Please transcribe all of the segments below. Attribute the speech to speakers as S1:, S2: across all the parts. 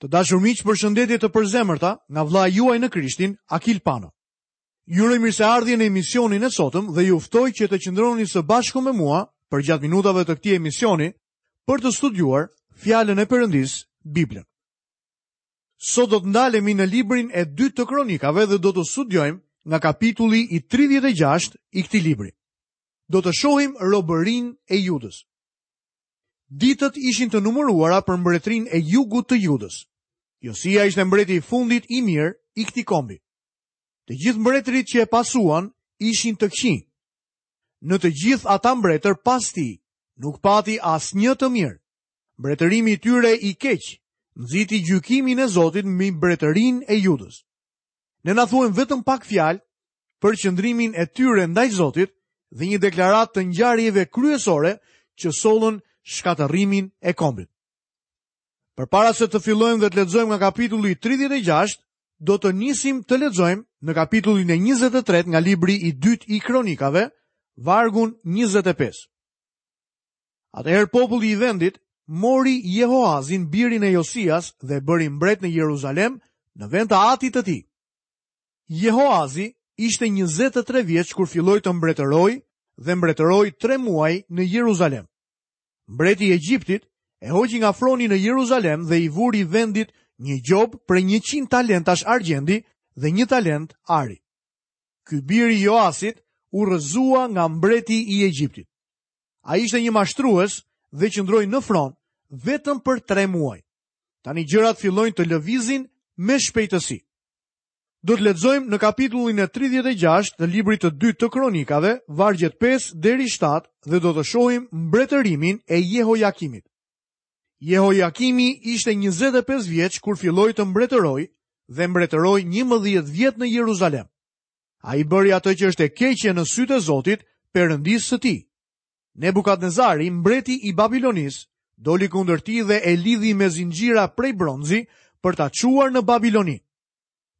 S1: Të dashur miq, përshëndetje të përzemërta nga vëllai juaj në Krishtin, Akil Pano. Ju uroj mirëseardhje në emisionin e sotëm dhe ju ftoj që të qëndroni së bashku me mua përgjatë minutave të këtij emisioni për të studiuar fjalën e Perëndisë, Biblën. Sot do të ndalemi në librin e dytë të kronikave dhe do të studiojmë nga kapitulli i 36 i këtij libri. Do të shohim robërinë e Judës. Ditët ishin të numëruara për mbretërinë e jugut të Judës. Josia ishte mbreti i fundit i mirë i këtij kombi. Të gjithë mbretërit që e pasuan ishin të këqinj. Në të gjithë ata mbretër pas tij, nuk pati asnjë të mirë. Mbretërimi i tyre i keq nxiti gjykimin e Zotit mbi mbretërinë e Judës. Ne na thuhen vetëm pak fjalë për qëndrimin e tyre ndaj Zotit dhe një deklaratë të ngjarjeve kryesore që sollën shkatërrimin e kombit. Përpara se të fillojmë dhe të lexojmë nga kapitulli 36, do të nisim të lexojmë në kapitullin e 23 nga libri i dytë i Kronikave, vargun 25. Atëherë populli i vendit mori Jehoazin birin e Josias dhe e bëri mbret në Jeruzalem në vend të atit të tij. Jehoazi ishte 23 vjeç kur filloi të mbretërojë dhe mbretëroi 3 muaj në Jeruzalem. Mbreti i Egjiptit e hoqi nga froni në Jeruzalem dhe i vuri vendit një gjobë prej 100 talentash argjendi dhe një talent ari. Ky bir i Joasit u rrëzua nga mbreti i Egjiptit. Ai ishte një mashtrues dhe qëndroi në fron vetëm për 3 muaj. Tani gjërat fillojnë të lëvizin me shpejtësi. Do të lexojmë në kapitullin e 36 të librit të dytë të Kronikave, vargjet 5 deri 7 dhe do të shohim mbretërimin e Jehojakimit. Jehojakimi ishte 25 vjeç kur filloi të mbretërojë dhe mbretëroi 11 vjet në Jeruzalem. Ai bëri atë që është e keqe në sytë e Zotit, Perëndisë së tij. Nebukadnezari, mbreti i Babilonisë, doli kundër tij dhe e lidhi me zinxhira prej bronzi për ta çuar në Babiloni.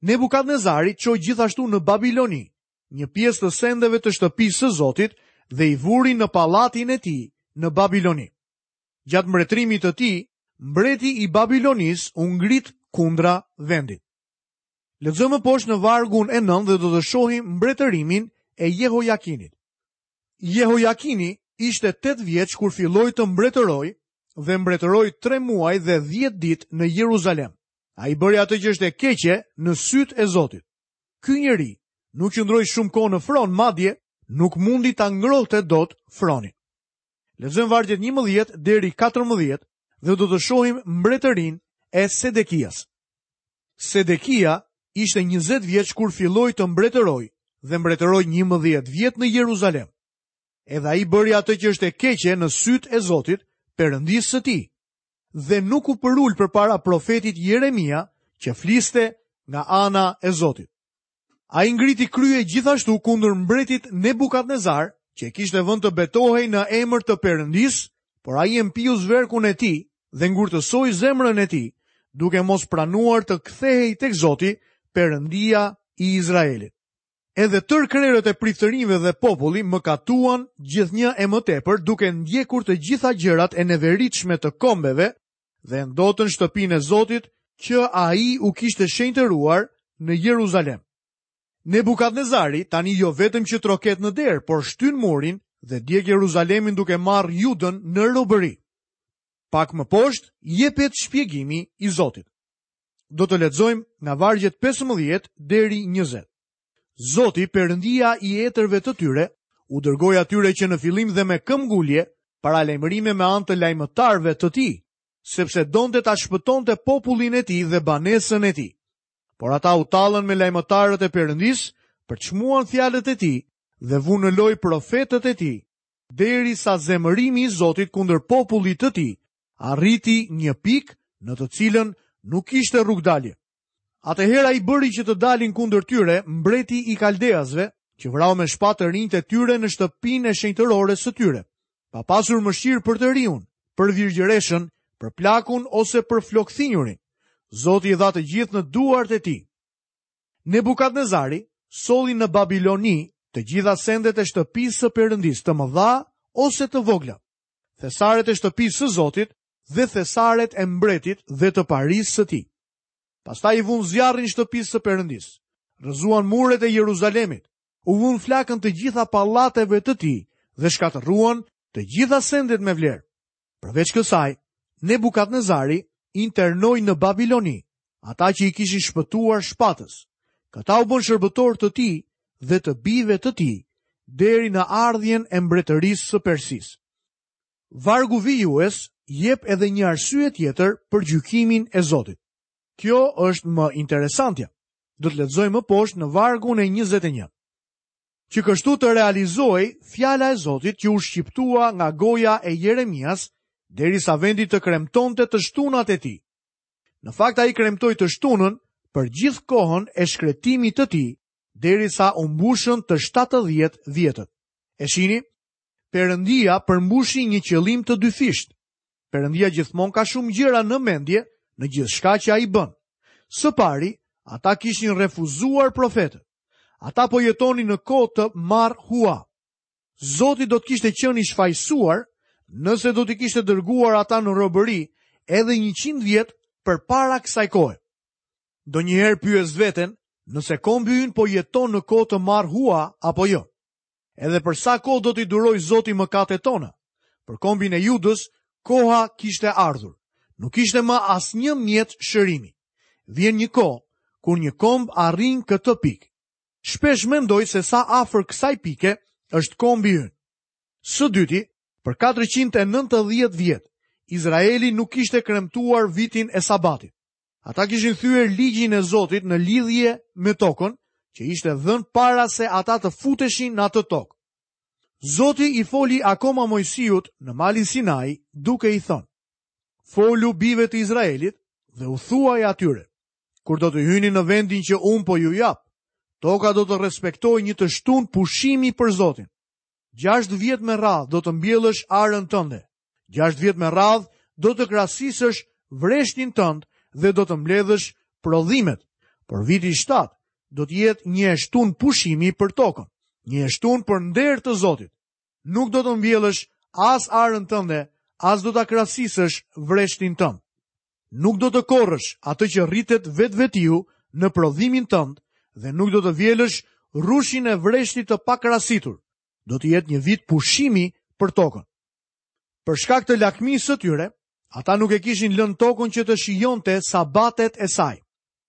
S1: Nebukadnezari çoi gjithashtu në Babiloni një pjesë të sendeve të shtëpisë së Zotit dhe i vuri në pallatin e tij në Babiloni. Gjatë mbretërimit të tij, mbreti i Babilonisë u ngrit kundra vendit. Lexojmë më poshtë në vargun e 9 dhe do të shohim mbretërimin e Jehojakinit. Jehojakini ishte 8 vjeç kur filloi të mbretërojë dhe mbretëroi 3 muaj dhe 10 ditë në Jeruzalem. Ai bëri atë që është e keqe në sytë e Zotit. Ky njeri nuk qëndroi shumë kohë në fron, madje nuk mundi ta ngrohte dot fronin. Lexojmë vargjet 11 deri 14 dhe do të shohim mbretërinë e Sedekias. Sedekia ishte 20 vjeç kur filloi të mbretërojë dhe mbretëroi 11 vjet në Jeruzalem. Edhe ai bëri atë që është e keqe në sytë e Zotit, Perëndisë së tij, dhe nuk u përul përpara profetit Jeremia që fliste nga ana e Zotit. Ai ngriti krye gjithashtu kundër mbretit Nebukadnezar, që e kishte vënë të betohej në emër të Perëndisë, por ai e mpiu zverkun e tij dhe ngurtësoi zemrën e tij, duke mos pranuar të kthehej tek Zoti, Perëndia i Izraelit. Edhe tërë krerët e priftërinjve dhe populli mëkatuan gjithnjë e më tepër duke ndjekur të gjitha gjërat e neveritshme të kombeve dhe e ndotën shtëpinë e Zotit që ai u kishte shenjtëruar në Jeruzalem. Nebukadnezari tani jo vetëm që troket në derë, por shtyn murin dhe djeg Jeruzalemin duke marrë Judën në robëri. Pak më poshtë jepet shpjegimi i Zotit. Do të lexojmë nga vargjet 15 deri 20. Zoti, Perëndia i etërve të tyre, u dërgoi atyre që në fillim dhe me këmbëngulje paralajmërime me anë të lajmëtarëve të tij, sepse donte ta shpëtonte popullin e tij dhe banesën e tij. Por ata u tallën me lajmëtarët e Perëndisë, përçmuan fjalët e tij dhe vunë në lojë profetët e tij, derisa zemërimi i Zotit kundër popullit të tij arriti një pikë në të cilën nuk kishte rrugëdalje. Atëherë ai bëri që të dalin kundër tyre mbreti i Kaldeasve, që vrau me shpatë të rinjtë e tyre në shtëpinë e shenjtërores së tyre, pa pasur mëshirë për të riun, për virgjëreshën, për plakun ose për flokthinjurin. Zoti i dha të gjithë në duart e tij. Nebukadnezari solli në Babiloni të gjitha sendet e shtëpisë së Perëndisë, të mëdha ose të vogla. Thesaret e shtëpisë së Zotit. dhe thesaret e mbretit dhe të parisë së tij. Pastaj i vunë zjarrin shtëpisë së Perëndisë, rrëzuan muret e Jeruzalemit, u vunë flakën të gjitha pallateve të tij dhe shkatërruan të gjitha sendet me vlerë. Përveç kësaj, Nebukadnezari internoi në Babiloni ata që i kishin shpëtuar shpatës. Këta u bënë shërbëtorë të tij dhe të bijve të tij deri në ardhjen e mbretërisë së Persisë. Vargu vijues jep edhe një arsye tjetër për gjykimin e Zotit. Kjo është më interesantja. Do të lexojmë më poshtë në vargun e 21. Që kështu të realizohej fjala e Zotit që u shqiptua nga goja e Jeremias, derisa vendi të kremtonte të shtunat e tij. Në fakt ai kremtoi të shtunën për gjithë kohën e shkretimit të tij, derisa u mbushën të 70 vjetët. E shihni, Perëndia përmbushi një qëllim të dyfishtë. Perëndia gjithmonë ka shumë gjëra në mendje në gjithçka që ai bën. Së pari, ata kishin refuzuar profetët. Ata po jetonin në kohë të marrë hua. Zoti do të kishte qenë i shfajësuar nëse do t'i kishte dërguar ata në robëri edhe 100 vjet përpara kësaj kohe. Ndonjëherë pyes veten nëse kombi ynë po jeton në kohë të marrë hua apo jo. Edhe për sa kohë do t'i durojë Zoti mëkatet tona? Për kombin e Judës, koha kishte ardhur. Nuk ishte më asnjë mjet shërimi. Vjen një kohë kur një komb arrin këtë pikë. Shpesh mendoj se sa afër kësaj pike është kombi ynë. Së dyti, për 490 vjet, Izraeli nuk kishte kremtuar vitin e sabatit. Ata kishin thyer ligjin e Zotit në lidhje me tokën, që ishte dhënë para se ata të futeshin në atë tokë. Zoti i foli akoma Moisiut në malin Sinai, duke i thënë: Folu bijve të Izraelit dhe u thuaj atyre: Kur do të hyni në vendin që unë po ju jap, toka do të respektojë një të shtunë pushimi për Zotin. 6 vjet me radhë do të mbjellësh arën tënde, 6 vjet me radhë do të krasisësh vreshtin tënd dhe do të mbledhësh prodhimet. Por viti i 7 do të jetë një e shtunë pushimi për tokën, një e shtunë për nder të Zotit. Nuk do të mbjellësh as arën tënde, as do ta krasisësh vreshtin tënd. Nuk do të korrësh atë që rritet vetvetiu në prodhimin tënd dhe nuk do të vjelësh rrushin e vreshtit të pakrasitur. Do të jetë një vit pushimi për tokën. Për shkak të lakmisë së tyre, ata nuk e kishin lënë tokën që të shijonte sabatet e saj.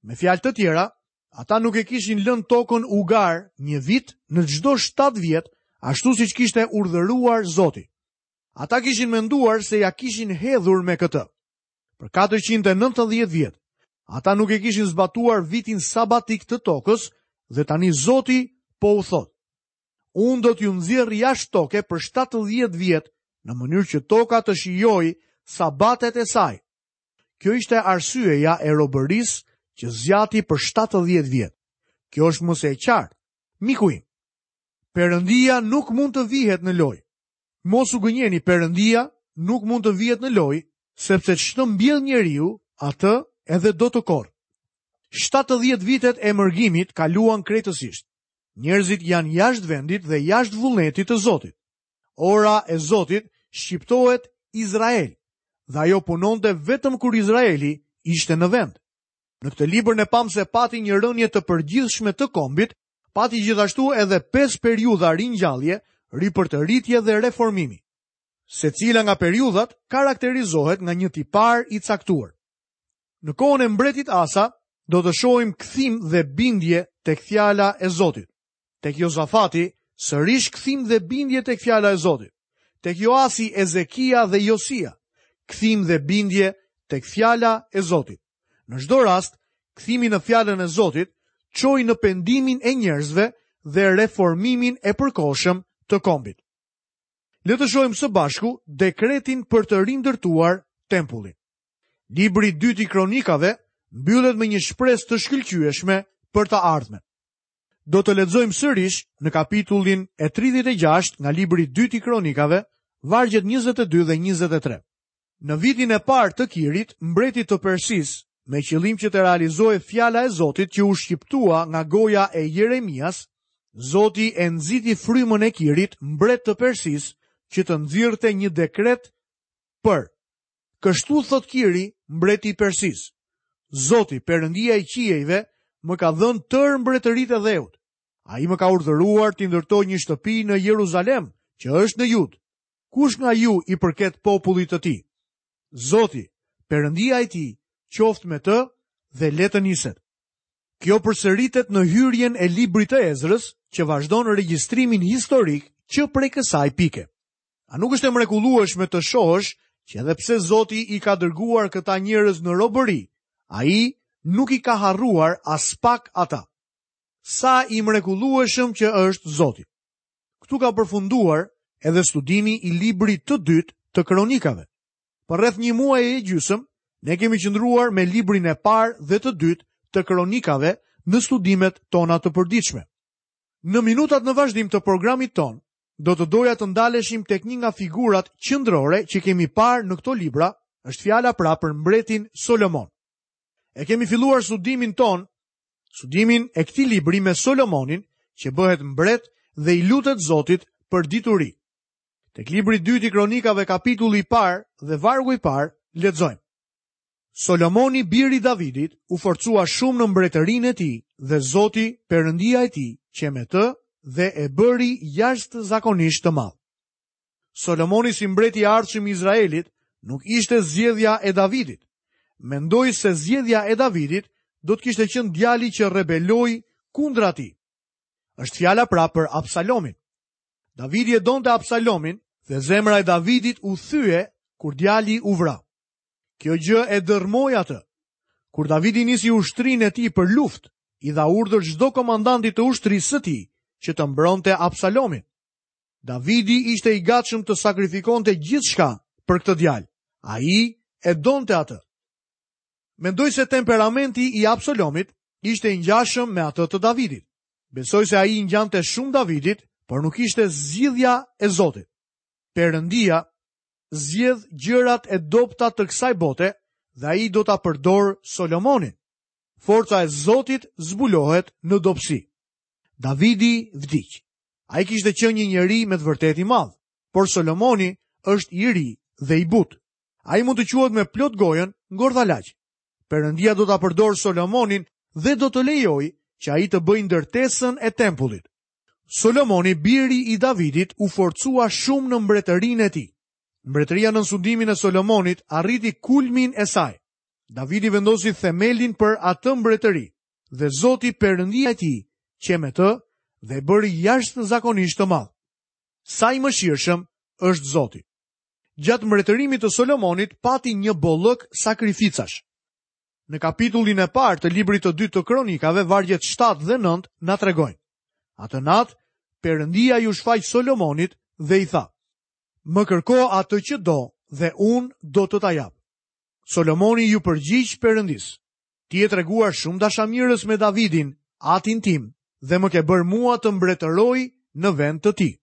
S1: Me fjalë të tjera, ata nuk e kishin lënë tokën ugar një vit në çdo 7 vjet, ashtu siç kishte urdhëruar Zoti. Ata kishin menduar se ia kishin hedhur me këtë. Për 490 vjet, ata nuk e kishin zbatuar vitin sabatik të tokës dhe tani Zoti po u thotë. Unë do t'ju nxjerr jashtë toke për 70 vjet në mënyrë që toka të shijojë sabatet e saj. Kjo ishte arsyeja e robërisë që zgjati për 70 vjet. Kjo është më se e qartë. Miku im, Perëndia nuk mund të vihet në lojë. Mos u gënjeni, Perëndia nuk mund të vihet në lojë, sepse ç'të mbjellë njeriu, atë edhe do të korrë. 70 vitet e mërgimit kaluan krejtësisht. Njerëzit janë jashtë vendit dhe jashtë vullnetit të Zotit. Ora e Zotit shqiptohet Izrael dhe ajo punonte vetëm kur Izraeli ishte në vend. Në këtë libër ne pamë se pati një rënie të përgjithshme të kombit, pati gjithashtu edhe 5 periudha ringjallje, ripërtëritje dhe reformimi. Secila nga periudhat karakterizohet nga një tipar i caktuar. Në kohën e mbretit Asa do të shohim kthim dhe bindje tek fjala e Zotit. Tek Jozafati sërish kthim dhe bindje tek fjala e Zotit. Tek Joasi, Ezekia dhe Josia, kthim dhe bindje tek fjala e Zotit. Në çdo rast, kthimi në fjalën e Zotit çoi në pendimin e njerëzve dhe reformimin e përkohshëm të kombit. Le të shohim së bashku dekretin për të rindërtuar tempullin. Libri i dytë i Kronikave mbyllet me një shpresë të shkëlqyeshme për të ardhmen. Do të lexojmë sërish në kapitullin e 36 nga libri i dytë i Kronikave, vargjet 22 dhe 23. Në vitin e parë të Kirit, mbretit të Persisë, me qëllim që të realizohej fjala e Zotit që u shqiptua nga goja e Jeremias, Zoti e nxiti frymën e Kirit, mbret të Persisë, që të nxirrte një dekret për. Kështu thotë Kiri, mbreti i Persisë. Zoti, Perëndia i qiejve, më ka dhënë tërë mbretëritë e dheut. Ai më ka urdhëruar t'i ndërtoj një shtëpi në Jeruzalem, që është në Judë. Kush nga ju i përket popullit të tij? Zoti, Perëndia e tij, qoftë me të dhe le të niset. Kjo përsëritet në hyrjen e librit të Ezrës, që vazhdon regjistrimin historik që prej kësaj pike. A nuk është e mrekullueshme të shohësh që edhe pse Zoti i ka dërguar këta njerëz në robëri, ai nuk i ka harruar aspak ata. Sa i mrekullueshëm që është Zoti. Këtu ka përfunduar edhe studimi i librit të dytë të kronikave. Për rreth një muaj e gjysmë, ne kemi qëndruar me librin e parë dhe të dytë të kronikave në studimet tona të përditshme. Në minutat në vazhdim të programit tonë, do të doja të ndaleshim tek një nga figurat qendrore që kemi parë në këto libra, është fjala pra për mbretin Solomon. E kemi filluar studimin tonë, studimin e këtij libri me Solomonin, që bëhet mbret dhe i lutet Zotit për dituri. Tek libri i dytë i Kronikave kapitulli i parë dhe vargu i parë lexojmë. Solomoni biri i Davidit u forcua shumë në mbretërinë e tij dhe Zoti, Perëndia e tij, qe me të dhe e bëri jashtëzakonisht të madh. Solomoni si mbreti i ardhshëm i Izraelit nuk ishte zgjedhja e Davidit. Mendoj se zgjedhja e Davidit do të kishte qenë djali që rebeloi kundra tij. Është fjala pra për Absalomin. Davidi e donte Absalomin dhe zemra e Davidit u thye kur djali u vra. Kjo gjë e dërrmoi atë. Kur Davidi nisi ushtrinë e tij për luftë, i dha urdhër çdo komandanti të ushtrisë së tij që të mbronte Absalomin. Davidi ishte i gatshëm të sakrifikonte gjithçka për këtë djalë. Ai e donte atë. Mendoj se temperamenti i Absalomit ishte i ngjashëm me atë të Davidit. Besoj se ai i ngjante shumë Davidit, por nuk ishte zgjidhja e Zotit. Perëndia zgjedh gjërat e dobëta të kësaj bote dhe ai do ta përdorë Solomonin. Forca e Zotit zbulohet në dobësi. Davidi vdiq. Ai kishte qenë një njeri me të vërtetë i madh, por Solomoni është i ri dhe i butë. Ai mund të quhet me plot gojën ngordhalaq. Perëndia do ta përdorë Solomonin dhe do të lejojë që ai të bëjë ndërtesën e tempullit. Solomoni, biri i Davidit, u forcua shumë në mbretërinë e tij. Mbretëria nën sundimin e Solomonit arriti kulmin e saj. Davidi vendosi themelin për atë mbretëri dhe Zoti Perëndia e tij qe me të dhe e bëri jashtëzakonisht të madh. Sa i mëshirshëm është Zoti. Gjatë mbretërimit të Solomonit pati një bollëk sakrificash. Në kapitullin e parë të librit të dytë të Kronikave, vargjet 7 dhe 9 na tregojnë. Atë natë, Perëndia iu shfaq Solomonit dhe i tha: Më kërko atë që do dhe unë do të ta jap. Solomoni iu përgjigj Perëndisë: Ti je treguar shumë dashamirës me Davidin, atin tim, dhe më ke bërë mua të mbretëroj në vend të tij.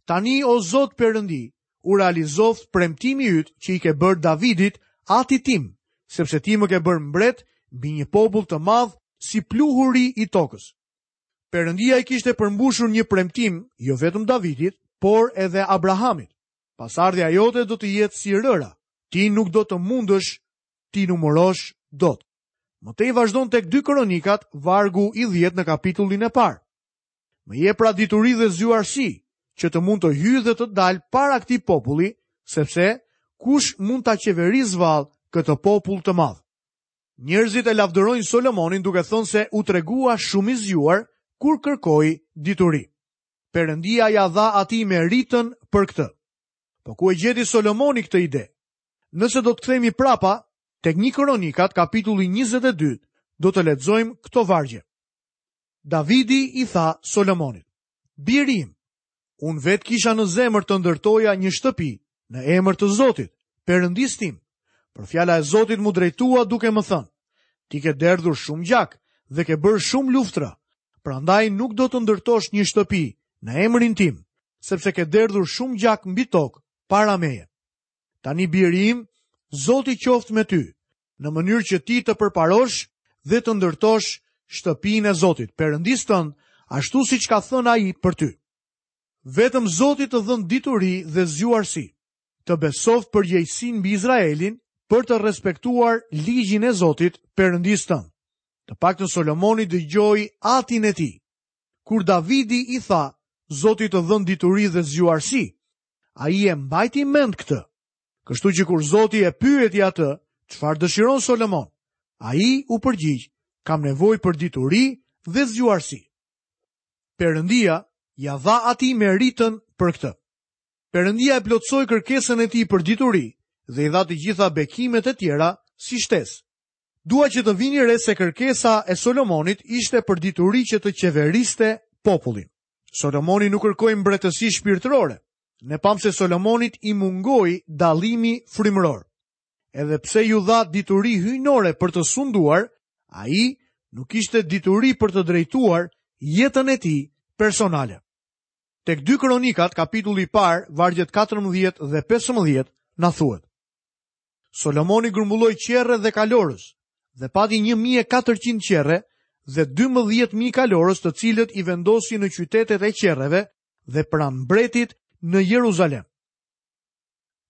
S1: Tani o Zot Perëndi, u realizoftë premtimi yt që i ke bërë Davidit, atit tim, sepse ti më ke bërë mbret mbi një popull të madh si pluhuri i tokës. Perëndia i kishte përmbushur një premtim jo vetëm Davidit, por edhe Abrahamit. Pasardhja jote do të jetë si rëra, ti nuk do të mundësh t'i numërosh dot. Më tej vazhdon tek 2 Kronikat, vargu i 10 në kapitullin e parë. Më jep pra dituri dhe zgjuarsi, që të mund të hyj dhe të dal para këtij populli, sepse kush mund ta qeverisë vallë këtë popull të madh? Njerëzit e lavdërojnë Solomonin duke thënë se u tregua shumë i zgjuar kur kërkoi dituri. Perëndia ia dha atij meritën për këtë. Po ku e gjeti Solomoni këtë ide? Nëse do të kthehemi prapa tek një Kronikat kapitulli 22, do të lexojmë këto vargje. Davidi i tha Solomonit, Biri im, unë vetë kisha në zemër të ndërtoja një shtëpi në emër të Zotit, Perëndisë tim. Por fjala e Zotit m'u drejtua duke më thënë, ti ke derdhur shumë gjak dhe ke bërë shumë luftra, prandaj nuk do të ndërtosh një shtëpi në emrin tim, sepse ke derdhur shumë gjak mbi tokë para meje. Tani biri im, Zoti qoftë me ty, në mënyrë që ti të përparosh dhe të ndërtosh shtëpinë e Zotit, Perëndisë tënd, ashtu siç ka thënë ai për ty. Vetëm Zoti të dhëntë dituri dhe zgjuarsi. të besoftë përgjegjësinë mbi Izraelin për të respektuar ligjin e Zotit, Perëndisë tënd. Të paktën Solomoni dëgjoi atin e tij. Kur Davidi i tha, Zoti të dhëntë dituri dhe zgjuarsi, ai e mbajti mend këtë. Kështu që kur Zoti e pyeti atë, çfarë dëshiron Solomon? Ai u përgjigj, kam nevojë për dituri dhe zgjuarsi. Perëndia ia dha atij meritën për këtë. Perëndia e plotësoi kërkesën e tij për dituri dhe i dha të gjitha bekimet e tjera si shtesë. Dua që të vini re se kërkesa e Solomonit ishte për dituri që të qeveriste popullin. Solomoni nuk kërkoi mbretësi shpirtërore. Ne pamë se Solomonit i mungoi dallimi frymëror. Edhe pse iu dha dituri hyjnore për të sunduar, ai nuk kishte dituri për të drejtuar jetën e tij personale. Tek 2 Kronikat, kapitulli i parë, vargjet 14 dhe 15, na thuhet. Solomoni grumbulloi qerre dhe kalorës dhe pati 1400 qerre dhe 12000 kalorës të cilët i vendosi në qytetet e qerreve dhe pranë mbretit në Jeruzalem.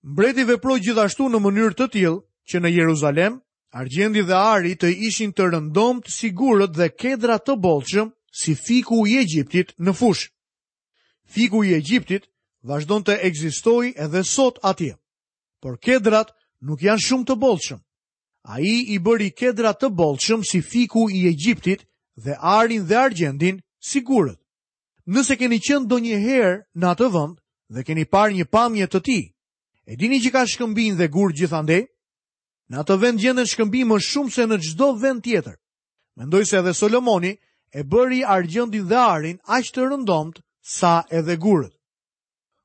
S1: Mbreti veproi gjithashtu në mënyrë të tillë që në Jeruzalem argjendi dhe ari të ishin të rëndomtë si gurët dhe kedra të bollshëm si fiku i Egjiptit në fushë. Fiku i Egjiptit vazhdon të ekzistojë edhe sot atje. Por kedrat nuk janë shumë të bollshëm. Ai i bëri kedrat të bollshëm si fiku i Egjiptit dhe arin dhe argjendin si gurët. Nëse keni qenë ndonjëherë në atë vend dhe keni parë një pamje të tij, e dini që ka shkëmbinj dhe gurë gjithandej? Në atë vend gjenden shkëmbinj më shumë se në çdo vend tjetër. Mendoj se edhe Solomoni e bëri argjendin dhe arin aq të rëndomtë sa edhe gurët.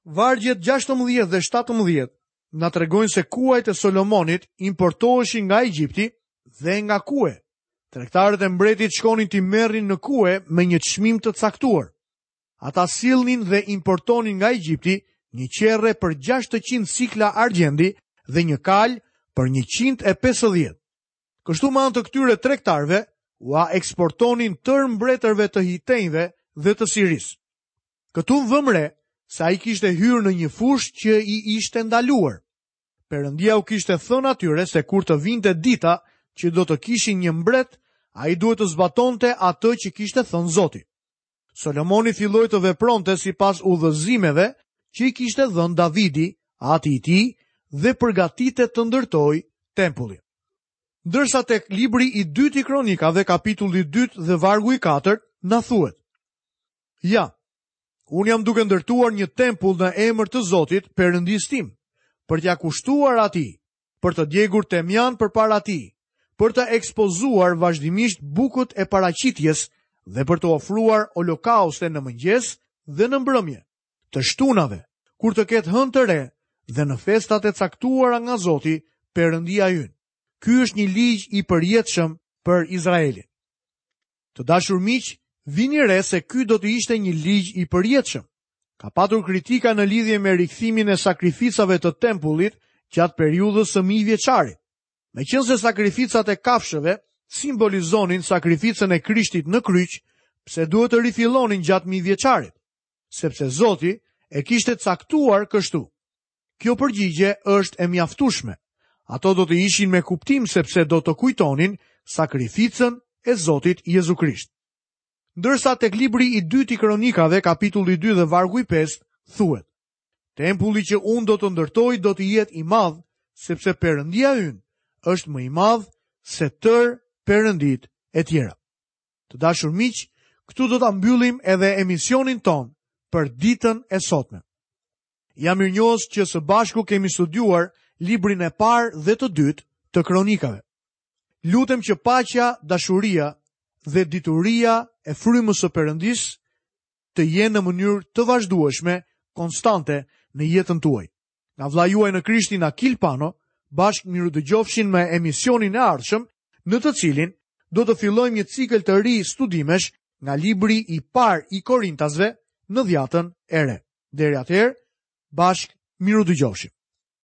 S1: Vargjet 16 dhe 17 na tregojnë se kuajt e Solomonit importoheshin nga Egjipti dhe nga Kue. Tregtarët e mbretit shkonin t'i merrnin në Kue me një çmim të caktuar. Ata sillnin dhe importonin nga Egjipti një qerre për 600 sikla argjendi dhe një kalë për 150. Kështu me anë të këtyre tregtarëve ua eksportonin tërë mbretërve të hitenjve dhe të Sirisë. Këtu vëmë re se ai kishte hyrë në një fushë që i ishte ndaluar. Perëndia u kishte thënë atyre se kur të vinte dita që do të kishin një mbret, ai duhet të zbatonte atë që kishte thënë Zoti. Solomoni filloi të vepronte sipas udhëzimeve që i kishte dhënë Davidi, ati i tij, dhe përgatitet të ndërtojë tempullin. Ndërsa tek libri i dytë i Kronikave, kapitulli i dytë dhe vargu i katërt, na thuhet: Ja, unë jam duke ndërtuar një tempull në emër të Zotit, Perëndisë tim, për t'ia kushtuar atij, për të djegur temjan përpara tij, për të ekspozuar vazhdimisht bukët e paraqitjes dhe për të ofruar holokauste në mëngjes dhe në mbrëmje, të shtunave, kur të ketë hënë të re dhe në festat e caktuara nga Zoti, Perëndia ynë. Ky është një ligj i përjetshëm për Izraelin. Të dashur miq, vini re se ky do të ishte një ligj i përjetshëm. Ka patur kritika në lidhje me rikthimin e sakrificave të tempullit gjatë periudhës së mijëvjeçarit. Meqenëse sakrificat e kafshëve simbolizonin sakrificën e Krishtit në kryq, pse duhet të rifillonin gjatë mijëvjeçarit? Sepse Zoti e kishte caktuar kështu. Kjo përgjigje është e mjaftueshme. Ato do të ishin me kuptim sepse do të kujtonin sakrificën e Zotit Jezu Krisht. Ndërsa tek libri i dytë i Kronikave, kapitulli 2 dhe vargu i 5, thuhet: Tempulli që unë do të ndërtoj do të jetë i madh, sepse Perëndia ynë është më i madh se tërë perënditë e tjera. Të dashur miq, këtu do ta mbyllim edhe emisionin tonë për ditën e sotme. Jam mirënjohës që së bashku kemi studiuar librin e parë dhe të dytë të kronikave. Lutem që paqja, dashuria dhe dituria e frymës së Perëndisë të jenë në mënyrë të vazhdueshme, konstante në jetën tuaj. Nga vëllai juaj në Krishtin Akil Pano, bashkë mirudëgjofshim në emisionin e ardhshëm, në të cilin do të fillojmë një cikël të ri studimesh nga libri i parë i Korintasve në Dhjatën e Re. Deri atëherë, bashkë mirudëgjofshim.